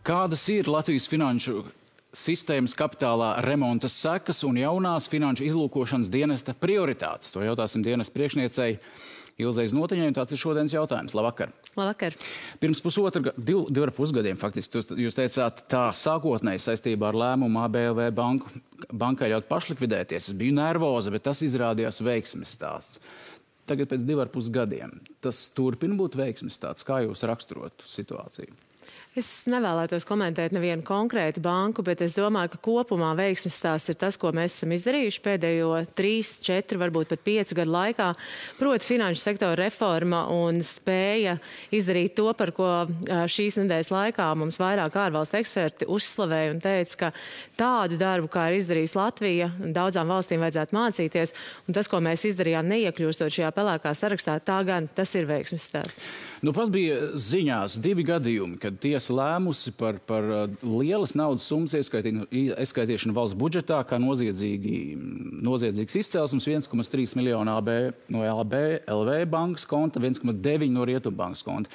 Kādas ir Latvijas finanšu sistēmas kapitālā remonta sekas un jaunās finanšu izlūkošanas dienesta prioritātes? To jautāsim dienesta priekšniecei Ilzei Znotiņai, un tāds ir šodienas jautājums. Labvakar! Labvakar! Pirms divu ar pus gadiem, faktiski, jūs teicāt tā sākotnēji saistībā ar lēmumu ABLV bankai ļaut pašlikvidēties. Es biju nervoza, bet tas izrādījās veiksmes stāsts. Tagad pēc 2,5 gadiem tas turpina būt veiksmes stāsts. Kā jūs raksturotu situāciju? Es nevēlētos komentēt nevienu konkrētu banku, bet es domāju, ka kopumā veiksmes stāsts ir tas, ko mēs esam izdarījuši pēdējo 3, 4, varbūt pat 5 gadu laikā. Proti finanšu sektora reforma un spēja izdarīt to, par ko šīs nedēļas laikā mums vairāk ārvalstu eksperti uzslavēja un teica, ka tādu darbu, kā ir izdarījis Latvija, daudzām valstīm vajadzētu mācīties. Un tas, ko mēs izdarījām neiekļūstot šajā pelēkā sarakstā, tas ir veiksmes stāsts. Nu, pat bija ziņās 2 gadījumi, kad tiesa lēmusi par lielas naudas summas ieskaitīšanu valsts budžetā, kā noziedzīgs izcelsums 1,3 miljonu no ABLV bankas konta, 1,9 no Rietumbankas konta.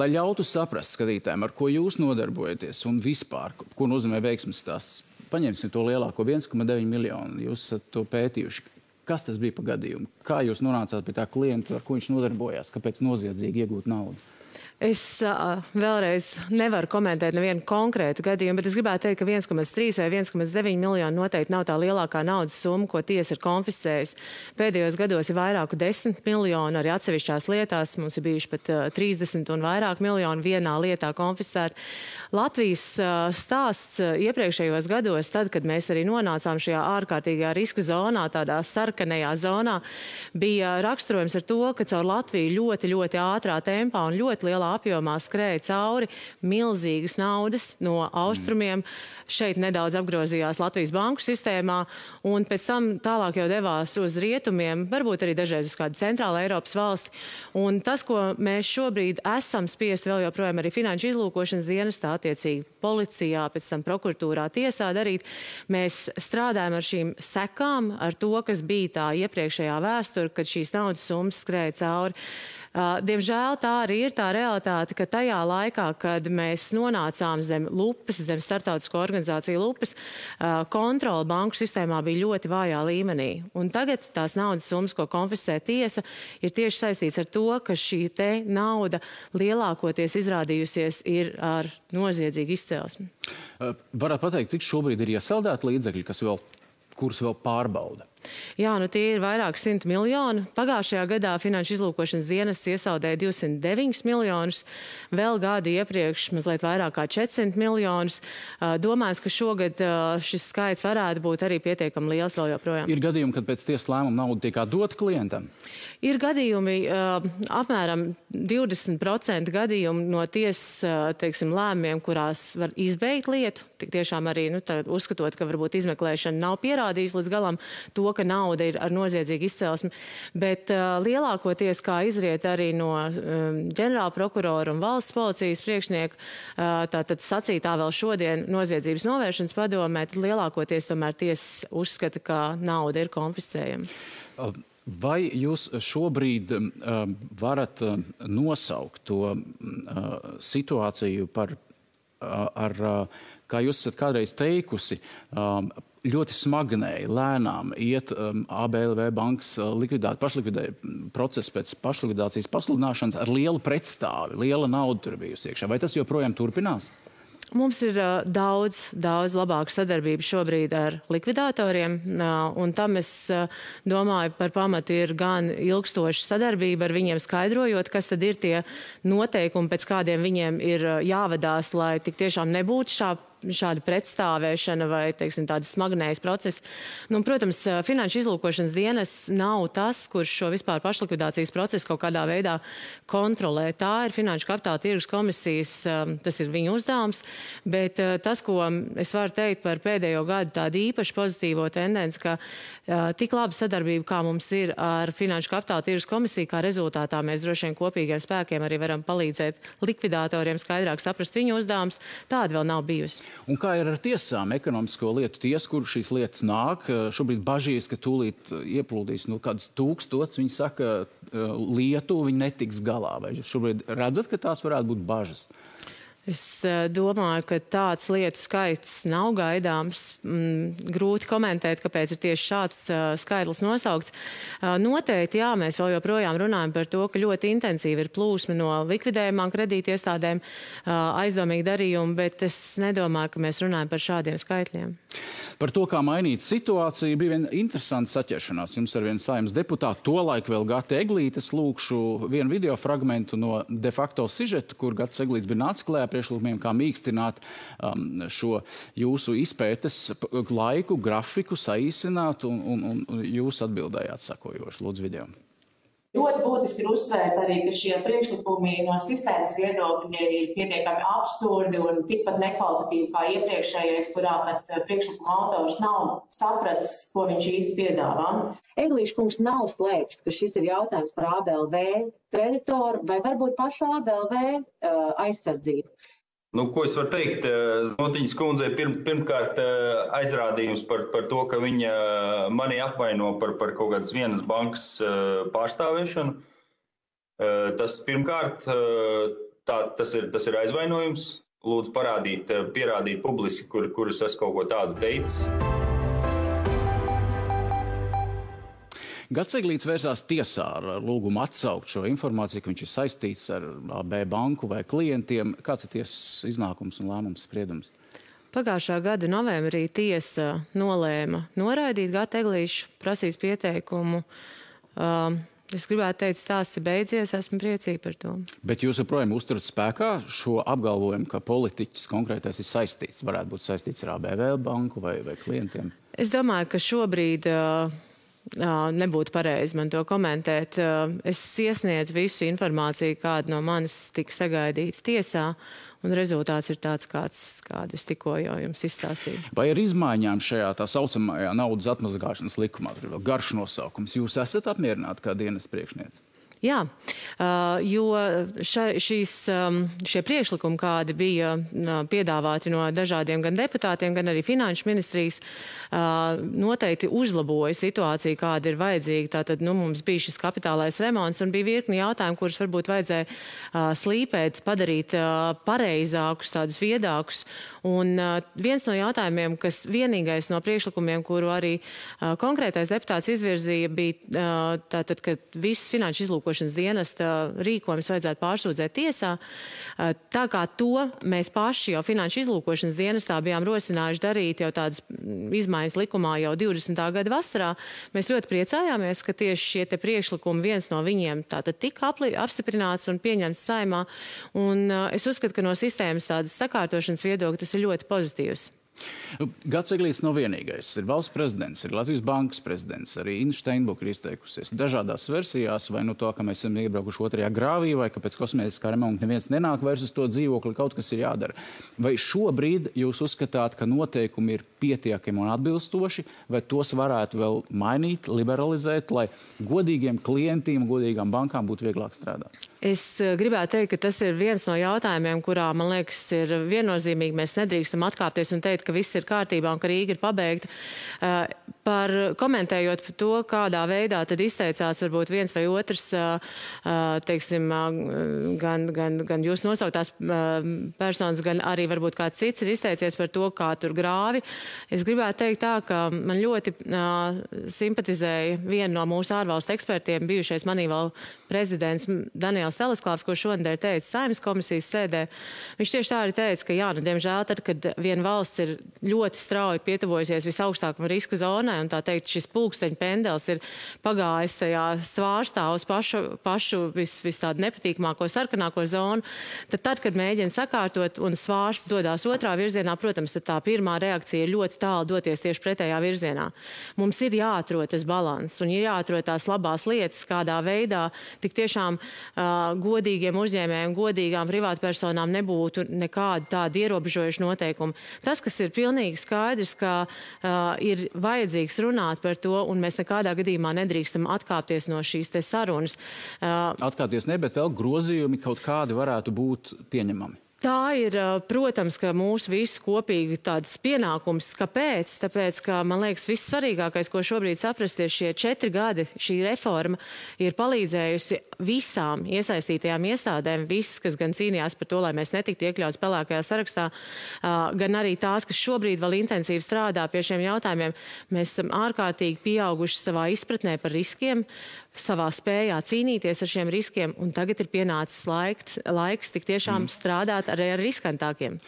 Lai ļautu saprast skatītājiem, ar ko jūs nodarbojaties un vispār, ko nozīmē veiksmes stāsts, paņemsim to lielāko 1,9 miljonu, jūs esat to pētījuši. Kas tas bija pa gadījumu? Kā jūs nonācāt pie tā klientu, ar ko viņš nodarbojās? Kāpēc noziedzīgi iegūt naudu? Es vēlreiz nevaru komentēt nevienu konkrētu gadījumu, bet es gribētu teikt, ka 1,3 vai 1,9 miljonu noteikti nav tā lielākā naudas summa, ko tiesa ir konfiscējusi. Pēdējos gados ir vairāku 10 miljonu, arī atsevišķās lietās mums ir bijuši pat 30 un vairāk miljonu vienā lietā konfiscēt. Latvijas stāsts iepriekšējos gados, tad, kad mēs arī nonācām šajā ārkārtīgajā riska zonā, tādā sarkanajā zonā, bija raksturojums ar to, ka caur Latviju ļoti, ļoti ātrā tempā un ļoti lielā apjomā skrēja cauri milzīgas naudas no austrumiem. Šeit nedaudz apgrozījās Latvijas banku sistēmā un pēc tam tālāk jau devās uz rietumiem, varbūt arī dažreiz uz kādu centrālu Eiropas valsti. Un tas, ko mēs šobrīd esam spiesti vēl joprojām arī finanšu izlūkošanas dienestā, attiecīgi policijā, pēc tam prokuratūrā, tiesā darīt, mēs strādājam ar šīm sekām, ar to, kas bija tā iepriekšējā vēsture, kad šīs naudas summas skrēja cauri. Diemžēl tā arī ir tā realitāte, ka tajā laikā, kad mēs nonācām zem lupas, zem starptautisko organizāciju lupas, kontrola banku sistēmā bija ļoti vājā līmenī. Un tagad tās naudas summas, ko konfiscē tiesa, ir tieši saistīts ar to, ka šī te nauda lielākoties izrādījusies ir ar noziedzīgu izcelsmi. Varētu pateikt, cik šobrīd ir iesaldēti līdzekļi, kurus vēl pārbauda? Jā, tie ir vairāk 100 miljoni. Pagājušajā gadā finanšu izlūkošanas dienests iesaldēja 209 miljonus, vēl gadu iepriekš mazliet vairāk kā 400 miljonus. Domājams, ka šogad šis skaits varētu būt arī pietiekami liels vēl joprojām. Ir gadījumi, kad pēc tiesas lēmuma nauda tiek dota klientam? Ir gadījumi, apmēram 20% gadījumu no tiesas, lēmumiem, kurās var izbeigt lietu. Tik tiešām arī, uzskatot, ka varbūt izmeklēšana nav pierādījusi līdz galam to, ka nauda ir ar noziedzīgu izcelsmi, bet lielākoties, kā izriet arī no ģenerāla prokurora un valsts policijas priekšnieka, tātad sacītā vēl šodien noziedzības novēršanas padomē, tad lielākoties tomēr tiesa uzskata, ka nauda ir konfiscējama. Vai jūs šobrīd varat nosaukt to situāciju kā jūs esat kādreiz teikusi, ļoti smagnēji, lēnām iet ABLV bankas procesu pēc pašlikvidācijas pasludināšanas ar lielu pretstāvi, liela nauda tur bijusi iekšā. Vai tas joprojām turpinās? Mums ir daudz labāka sadarbība šobrīd ar likvidatoriem, un tam es domāju par pamatu ir gan ilgstoša sadarbība ar viņiem skaidrojot, kas tad ir tie noteikumi, pēc kādiem viņiem ir jāvadās, lai tik tiešām nebūtu šāda pretstāvēšana vai, tādas smagnējas procesi. Protams, finanšu izlūkošanas dienests nav tas, kurš šo vispār pašlikvidācijas procesu kaut kādā veidā kontrolē. Tā ir Finanšu kapitāla tirgus komisijas, tas ir viņu uzdevums, bet tas, ko es varu teikt par pēdējo gadu tādu īpaši pozitīvo tendenci, ka tik laba sadarbība, kā mums ir ar Finanšu kapitāla tirgus komisiju, kā rezultātā mēs droši vien kopīgiem spēkiem arī varam palīdzēt likvidatoriem skaidrāk saprast viņu uzdevums, tāda vēl nav bijusi. Un kā ir ar tiesām, ekonomisko lietu tiesu, kur šīs lietas nāk? Šobrīd bažīs, ka tūlīt ieplūdīs kādas 1000, viņi saka, lietu, viņi netiks galā. Vai jūs šobrīd redzat, ka tās varētu būt bažas? Es domāju, ka tāds lietu skaits nav gaidāms. Grūti komentēt, kāpēc ir tieši šāds skaitlis nosaukts. Noteikti, jā, mēs vēl joprojām runājam par to, ka ļoti intensīvi ir plūsma no likvidējumām kredītiestādēm, aizdomīgi darījumi, bet es nedomāju, ka mēs runājam par šādiem skaitļiem. Par to, kā mainīt situāciju, bija viena interesanta saķeršanās. Jums ar vienu Saeimas deputātu, tolaik vēl Gata Eglītes, lūkšu vienu video fragmentu no de facto sižeta, kur Gats Eglītes bija nācis klējā priekšlikumiem, kā mīkstināt šo jūsu izpētes laiku, grafiku, saīsināt, un jūs atbildējāt sakojoši. Lūdzu, video. Ļoti būtiski ir uzsvērt arī, ka šie priekšlikumi no sistēmas viedokļa ir pietiekami absurdi un tikpat nekvalitatīvi kā iepriekšējais, kurā pat priekšlikuma autors nav sapratis, ko viņš īsti piedāvā. Eglīša kungs nav slēpis, ka šis ir jautājums par ABLV kreditoru vai varbūt pašu ABLV aizsardzību. Ko es varu teikt? Znotiņas kundzei pirmkārt aizrādījums par to, ka viņa mani apvaino par kaut kādas vienas bankas pārstāvēšanu. Tas pirmkārt, tas ir aizvainojums. Lūdzu pierādīt publiski, kur es esmu kaut ko tādu teicis. Gats Eglītes vērsās tiesā ar lūgumu atsaukt šo informāciju, ka viņš ir saistīts ar AB banku vai klientiem. Kāds ir tiesas iznākums un lēmums spriedums? Pagājušā gada novembrī tiesa nolēma noraidīt Gata Eglīšu prasīs pieteikumu. Es gribētu teikt, stāsts ir beidzies, esmu priecīga par to. Bet jūs joprojām uzturat spēkā šo apgalvojumu, ka politiķis konkrētais ir saistīts, varētu būt saistīts ar ABV banku vai klientiem? Es domāju, ka šobrīd nebūtu pareizi man to komentēt. Es iesniedzu visu informāciju, kāda no manis tika sagaidīta tiesā, un rezultāts ir tāds, kādu es tikko jau jums izstāstīju. Vai ar izmaiņām šajā tā saucamajā naudas atmazgāšanas likumā, tur ir vēl garš nosaukums, jūs esat apmierināti kā dienas priekšniece? Jā, jo šie priekšlikumi, kādi bija piedāvāti no dažādiem gan deputātiem, gan arī finanšu ministrijas, noteikti uzlaboja situāciju, kāda ir vajadzīga. Tātad, mums bija šis kapitālais remonts un bija virkni jautājumu, kurus varbūt vajadzēja slīpēt, padarīt pareizākus, tādus viedākus. Un viens no jautājumiem, kas vienīgais no priekšlikumiem, kuru arī konkrētais deputāts izvirzīja, bija tātad, ka visas finanšu izlūkošanas dienesta rīkojums vajadzētu pārsūdzēt tiesā. Tā kā to mēs paši jau finanšu izlūkošanas dienestā bijām rosinājuši darīt jau tādas izmaiņas likumā jau 20. gada vasarā, mēs ļoti priecājāmies, ka tieši šie te priekšlikumi viens no viņiem tātad tika apstiprināts un pieņemts Saeimā. Un es uzskatu, ka no sistēmas tādas sakārtošanas viedokļa tas ir ļoti pozitīvs. Gats Eglītes nav vienīgais. Ir valsts prezidents, ir Latvijas bankas prezidents, arī Inna Steinbuka ir izteikusies dažādās versijās, vai no to, ka mēs esam iebraukuši otrajā grāvī, vai ka pēc kosmētiskā remonta neviens nenāk vairs uz to dzīvokli, kaut kas ir jādara. Vai šobrīd jūs uzskatāt, ka noteikumi ir pietiekami un atbilstoši, vai tos varētu vēl mainīt, liberalizēt, lai godīgiem klientiem, godīgām bankām būtu vieglāk strādāt? Es gribētu teikt, ka tas ir viens no jautājumiem, kurā, man liekas, ir viennozīmīgi. Mēs nedrīkstam atkāpties un teikt, ka viss ir kārtībā un ka Rīga ir pabeigta. Komentējot par to, kādā veidā tad izteicās varbūt viens vai otrs, teiksim, gan jūs nosauktās personas, gan arī varbūt kāds cits ir izteicies par to, kā tur grāvi. Es gribētu teikt tā, ka man ļoti simpatizēja viena no mūsu ārvalstu ekspertiem, bijušais Manīval prezidents Daniels Telesklāvs, ko šonadēļ teica Saeimas komisijas sēdē. Viņš tieši tā arī teica, ka jā, diemžēl tad, kad viena valsts ir ļoti strauji pietuvojusies visaugstākam riska zonai, un tā teikt, šis pulksteņa pendels ir pagājis tajā svārstā uz pašu vis tādu nepatīkamāko sarkanāko zonu, tad, kad mēģina sakārtot un svārsts dodās otrā virzienā, protams, tad tā pirmā reakcija ir ļoti tālu doties tieši pretējā virzienā. Mums ir jāatrod tas balans un ir jāatrod tās labās lietas, kādā veidā tik tiešām godīgiem uzņēmējiem, godīgām privātpersonām nebūtu nekādu tādu ierobežojušu noteikumu. Tas, kas ir pilnīgi skaidrs, ka ir vajadzīgs runāt par to, un mēs nekādā gadījumā nedrīkstam atkāpties no šīs te sarunas. Atkāpties ne, bet vēl grozījumi kaut kādi varētu būt pieņemami. Tā ir, protams, ka mūsu visu kopīgi tāds pienākums. Kāpēc? Tāpēc, ka, man liekas, viss svarīgākais, ko šobrīd saprast, ir šie 4 gadi. Šī reforma ir palīdzējusi visām iesaistītajām iestādēm, visas, kas gan cīnījās par to, lai mēs netiktu iekļauts pelēkajā sarakstā, gan arī tās, kas šobrīd vēl intensīvi strādā pie šiem jautājumiem. Mēs esam ārkārtīgi pieauguši savā izpratnē par riskiem, savā spējā cīnīties ar šiem riskiem, un tagad ir pienācis laiks tik tiešām strādāt arī ar riskantākiem.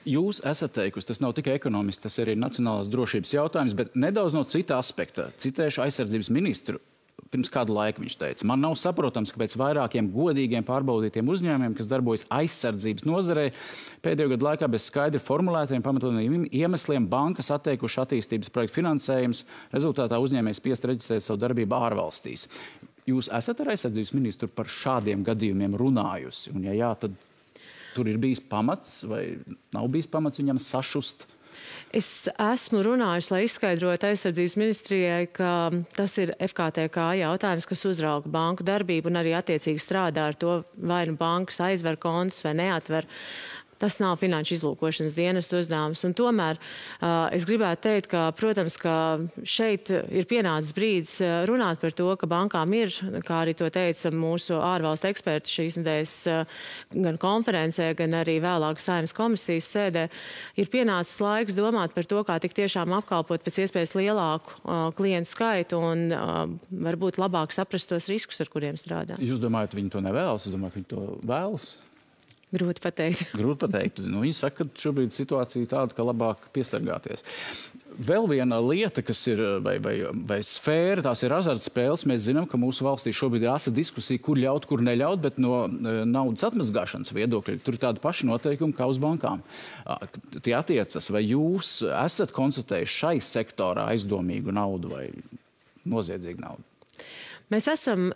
Jūs esat teikusi, tas nav tikai ekonomists, tas ir arī nacionālās drošības jautājums, bet nedaudz no cita aspekta. Citēšu aizsardzības ministru. Pirms kādu laiku viņš teica, man nav saprotams, ka pēc vairākiem godīgiem pārbaudītiem uzņēmumiem, kas darbojas aizsardzības nozarē, pēdējo gadu laikā bez skaidri formulētiem pamatotiem iemesliem bankas atteikuši attīstības projektu finansējums, rezultātā uzņēmējs spiest reģistrēt savu darbību ārvalstīs. Jūs esat ar aizsardzības ministru par šādiem gadījumiem runājusi? Un ja jā, tad tur ir bijis pamats vai nav bijis pamats viņam sašust? Es esmu runājusi, lai izskaidrotu aizsardzības ministrijai, ka tas ir FKTK jautājums, kas uzrauga banku darbību un arī attiecīgi strādā ar to, vai nu bankas aizver kontus vai neatver. Tas nav finanšu izlūkošanas dienesta uzdevums. Un tomēr es gribētu teikt, ka, protams, ka šeit ir pienācis brīdis runāt par to, ka bankām ir, kā arī to teica mūsu ārvalstu eksperti šīs nedēļas gan konferencē, gan arī vēlāk Saeimas komisijas sēdē, ir pienācis laiks domāt par to, kā tik tiešām apkalpot pēc iespējas lielāku klientu skaitu un varbūt labāk saprast tos riskus, ar kuriem strādā. Jūs domājat, viņi to nevēlas? Es domāju, ka viņi to vēlas? Grūti pateikt. Grūti pateikt. Viņi saka, ka šobrīd situācija tāda, ka labāk piesargāties. Vēl viena lieta, kas ir, vai sfēra, tās ir azartspēles. Mēs zinām, ka mūsu valstī šobrīd ir asa diskusija, kur ļaut, kur neļaut, bet no naudas atmazgāšanas viedokļa tur ir tādi paši noteikumi kā uz bankām. Tie attiecas, vai jūs esat konstatējuši šai sektorā aizdomīgu naudu vai noziedzīgu naudu? Mēs esam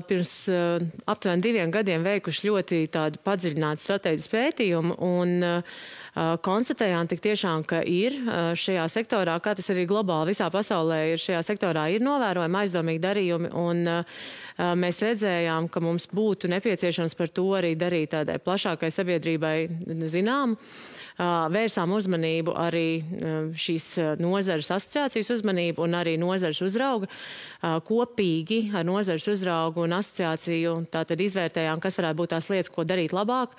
pirms aptuveni 2 gadiem veikuši ļoti tādu padziļinātu strateģisku pētījumu un konstatējām tik tiešām, ka ir šajā sektorā, kā tas arī globāli visā pasaulē ir, šajā sektorā ir novērojami aizdomīgi darījumi un mēs redzējām, ka mums būtu nepieciešams par to arī darīt tādai plašākai sabiedrībai zinām. Vērsām uzmanību arī šīs nozares asociācijas uzmanību un arī nozares uzrauga. Kopīgi ar nozares uzraugu un asociāciju tātad izvērtējām, kas varētu būt tās lietas, ko darīt labāk.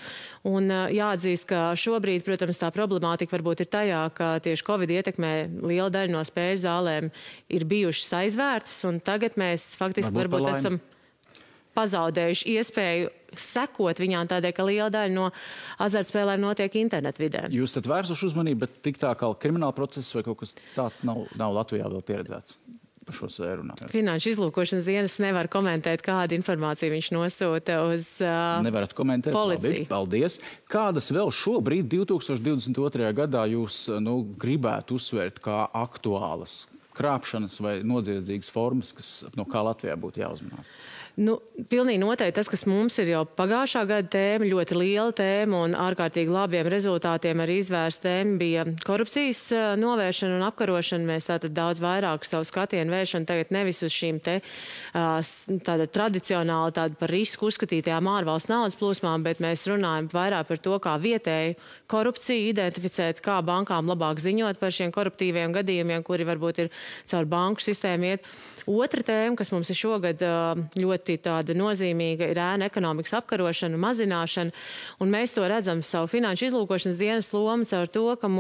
Un jāatzīst, ka šobrīd, protams, tā problemātika varbūt ir tajā, ka tieši Covid ietekmē liela daļa no spēļu zālēm ir bijušas aizvērtas, un tagad mēs faktiski varbūt esam pazaudējuši iespēju sekot viņām tādēļ, ka liela daļa no azartspēlēm notiek internetvidē. Jūs esat vērsuši uzmanību, bet tik tā kā krimināla process vai kaut kas tāds nav Latvijā vēl pieredzēts par šo sfēru runāt. Finanšu izlūkošanas dienas nevar komentēt, kādu informāciju viņš nosūta uz Nevarat komentēt, policiju. Labi, paldies. Kādas vēl šobrīd 2022. gadā jūs gribētu uzsvērt kā aktuālas krāpšanas vai noziedzīgas formas, no kā Latvijā būtu jāuzmanās? Pilnīgi noteikti tas, kas mums ir jau pagājušā gada tēma, ļoti liela tēma un ārkārtīgi labiem rezultātiem arī izvērsta tēma bija korupcijas novēršana un apkarošana. Mēs tātad daudz vairāk savu skatienu vēršanu tagad nevis uz šīm te tāda tradicionāli tāda par risku uzskatītajām ārvalstu naudas plūsmām, bet mēs runājam vairāk par to, kā vietēji korupciju identificēt, kā bankām labāk ziņot par šiem koruptīviem gadījumiem, kuri varbūt ir caur banku sistēmu iet. Otra tēma, kas mums ir šogad ļoti tāda nozīmīga, ir ēnu ekonomikas apkarošana, mazināšana, un mēs to redzam savu finanšu izlūkošanas dienas lomu caur to, ka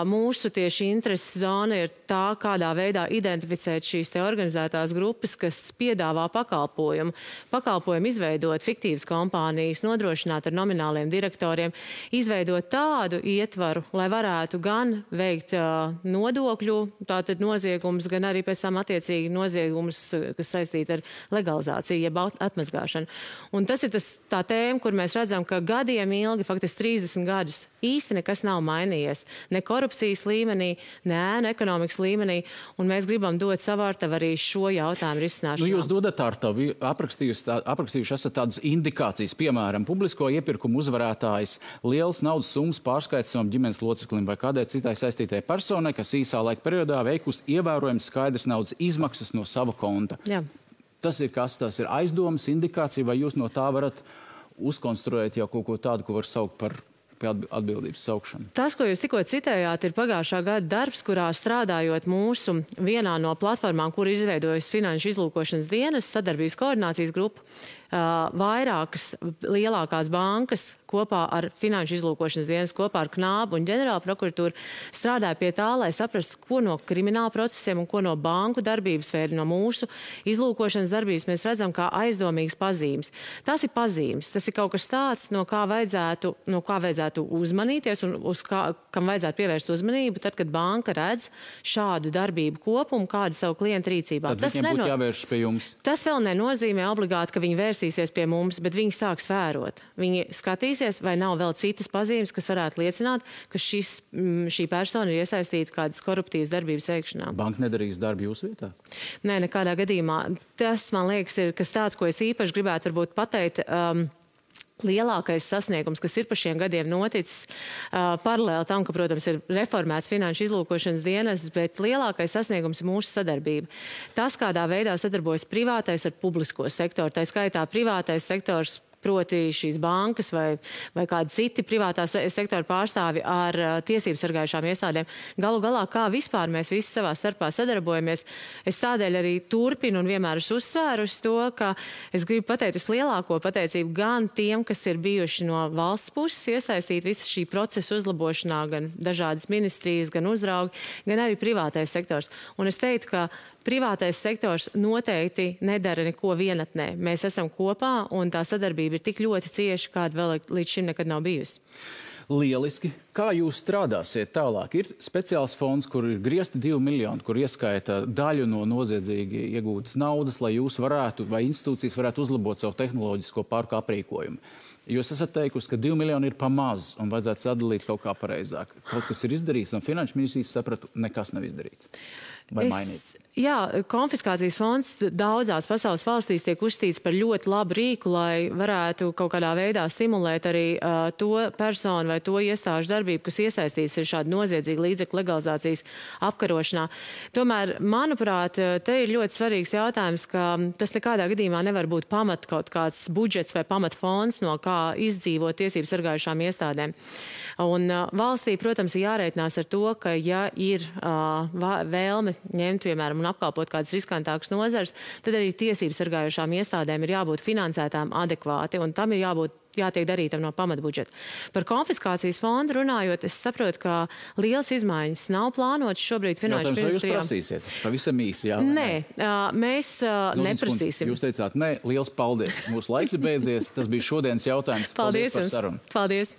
mūsu tieši intereses zona ir tā, kādā veidā identificēt šīs te organizētās grupas, kas piedāvā pakalpojumu. Pakalpojumu izveidot fiktīvas kompānijas, nodrošināt ar nomināliem direktoriem, izveidot tādu ietvaru, lai varētu gan veikt nodokļu, tātad noziegumus, gan arī pēc tam attiecīgi noziegumus, kas saistīti ar legalizāciju, jeb atmazgāšanu. Un tas ir tā tēma, kur mēs redzam, ka gadiem ilgi, faktiski 30 gadus, īsti nekas nav mainījies. Ne korupcijas līmenī, ne ēnu ekonomikas līmenī, un mēs gribam dot savārtavu arī šo jautājumu risināšanā. Jūs dodat ārtavu, aprakstījuši esat tādas indikācijas, piemēram, publisko iepirkumu uzvarētājs, liels naudas summas pārskaits savam ģimenes loceklim vai kādai citai saistītai personai, kas īsā laika periodā veikusi ievērojams skaidrs naudas izmaksas no sava konta. Jā. Tas ir kas? Tas ir aizdomas, indikācija, vai jūs no tā varat uzkonstruēt jau kaut ko tādu, ko var saukt par atbildības saukšanu. Tas, ko jūs tikko citējāt, ir pagājušā gada darbs, kurā strādājot mūsu vienā no platformām, kur izveidojas Finanšu izlūkošanas dienas sadarbības koordinācijas grupa, vairākas lielākās bankas kopā ar Finanšu izlūkošanas dienas, kopā ar Knābu un ģenerāla prokuratūru strādāja pie tā, lai saprastu, ko no krimināla procesiem un ko no banku darbības vai no mūsu izlūkošanas darbības mēs redzam kā aizdomīgas pazīmes. Tas ir pazīmes, tas ir kaut kas tāds, no kā vajadzētu uzmanīties un kam vajadzētu pievērst uzmanību, tad, kad banka redz šādu darbību kopumu, kādu savu klientu rīcībā. Tad viņiem būtu jāvēršas pie jums. Tas vēl nenozīmē obligāti, ka viņi vērsīsies pie mums, bet viņi sāks vērot. Viņi skatīsies, vai nav vēl citas pazīmes, kas varētu liecināt, ka šī persona ir iesaistīta kādas koruptīvas darbības veikšanā. Banka nedarīs darbu jūsu vietā? Nē, nekādā gadījumā. Tas, man liekas, ir kas tāds, ko es īpaši gribētu varbūt pateikt. Lielākais sasniegums, kas ir pa šiem gadiem noticis, paralēli tam, ka, protams, ir reformēts Finanšu izlūkošanas dienas, bet lielākais sasniegums ir mūsu sadarbība. Tas, kādā veidā sadarbojas privātais ar publisko sektoru, tā skaitā privātais sektors, proti šīs bankas vai kādi citi privātā sektora pārstāvi ar tiesību sargājušām iestādēm. Galu galā, kā vispār mēs visi savā starpā sadarbojamies, es tādēļ arī turpinu un vienmēr esmu uzsvērusi to, ka es gribu pateikt vislielāko pateicību gan tiem, kas ir bijuši no valsts puses iesaistīti visa šī procesa uzlabošanā, gan dažādas ministrijas, gan uzraugi, gan arī privātais sektors. Un es teiktu, ka privātais sektors noteikti nedara neko vienatnē. Mēs esam kopā un tā sadarbība ir tik ļoti cieša, kāda vēl līdz šim nekad nav bijusi. Lieliski. Kā jūs strādāsiet tālāk? Ir speciāls fonds, kur ir griezti 2 miljoni, kur ieskaita daļu no noziedzīgi iegūtas naudas, lai jūs varētu vai institūcijas varētu uzlabot savu tehnoloģisko parku aprīkojumu. Jūs esat teikusi, ka 2 miljoni ir pa maz un vajadzētu sadalīt kaut kā pareizāk. Kaut kas ir izdarīts un Finanšu ministrijas sapratu, nekas nav izdarīts. Jā, konfiskācijas fonds daudzās pasaules valstīs tiek uzskatīts par ļoti labu rīku, lai varētu kaut kādā veidā stimulēt arī to personu vai to iestāžu darbību, kas iesaistīts ir šāda noziedzīga līdzekļu legalizācijas apkarošanā. Tomēr, manuprāt, te ir ļoti svarīgs jautājums, ka tas nekādā gadījumā nevar būt pamat kaut kāds budžets vai pamat fonds, no kā izdzīvot tiesību sargājušām iestādēm. Un valstī, protams, ir jārēķinās ar to, ka ja ir vēlme ņemt, piemēram, un apkalpot kādas riskantākas nozares, tad arī tiesību sargājušām iestādēm ir jābūt finansētām adekvāti, un tam ir jātiek darītam no pamatbudžeta. Par konfiskācijas fondu runājot, es saprotu, ka liels izmaiņas nav plānotas šobrīd Finanšu ministrijā. Jūs prasīsiet? Pavisam īsi, jā? Nē, mēs neprasīsim. Jūs teicāt, nē, liels paldies. Mūsu laiks ir beidzies. Tas bija šodienas jautājums. Paldies par sarunu. Paldies.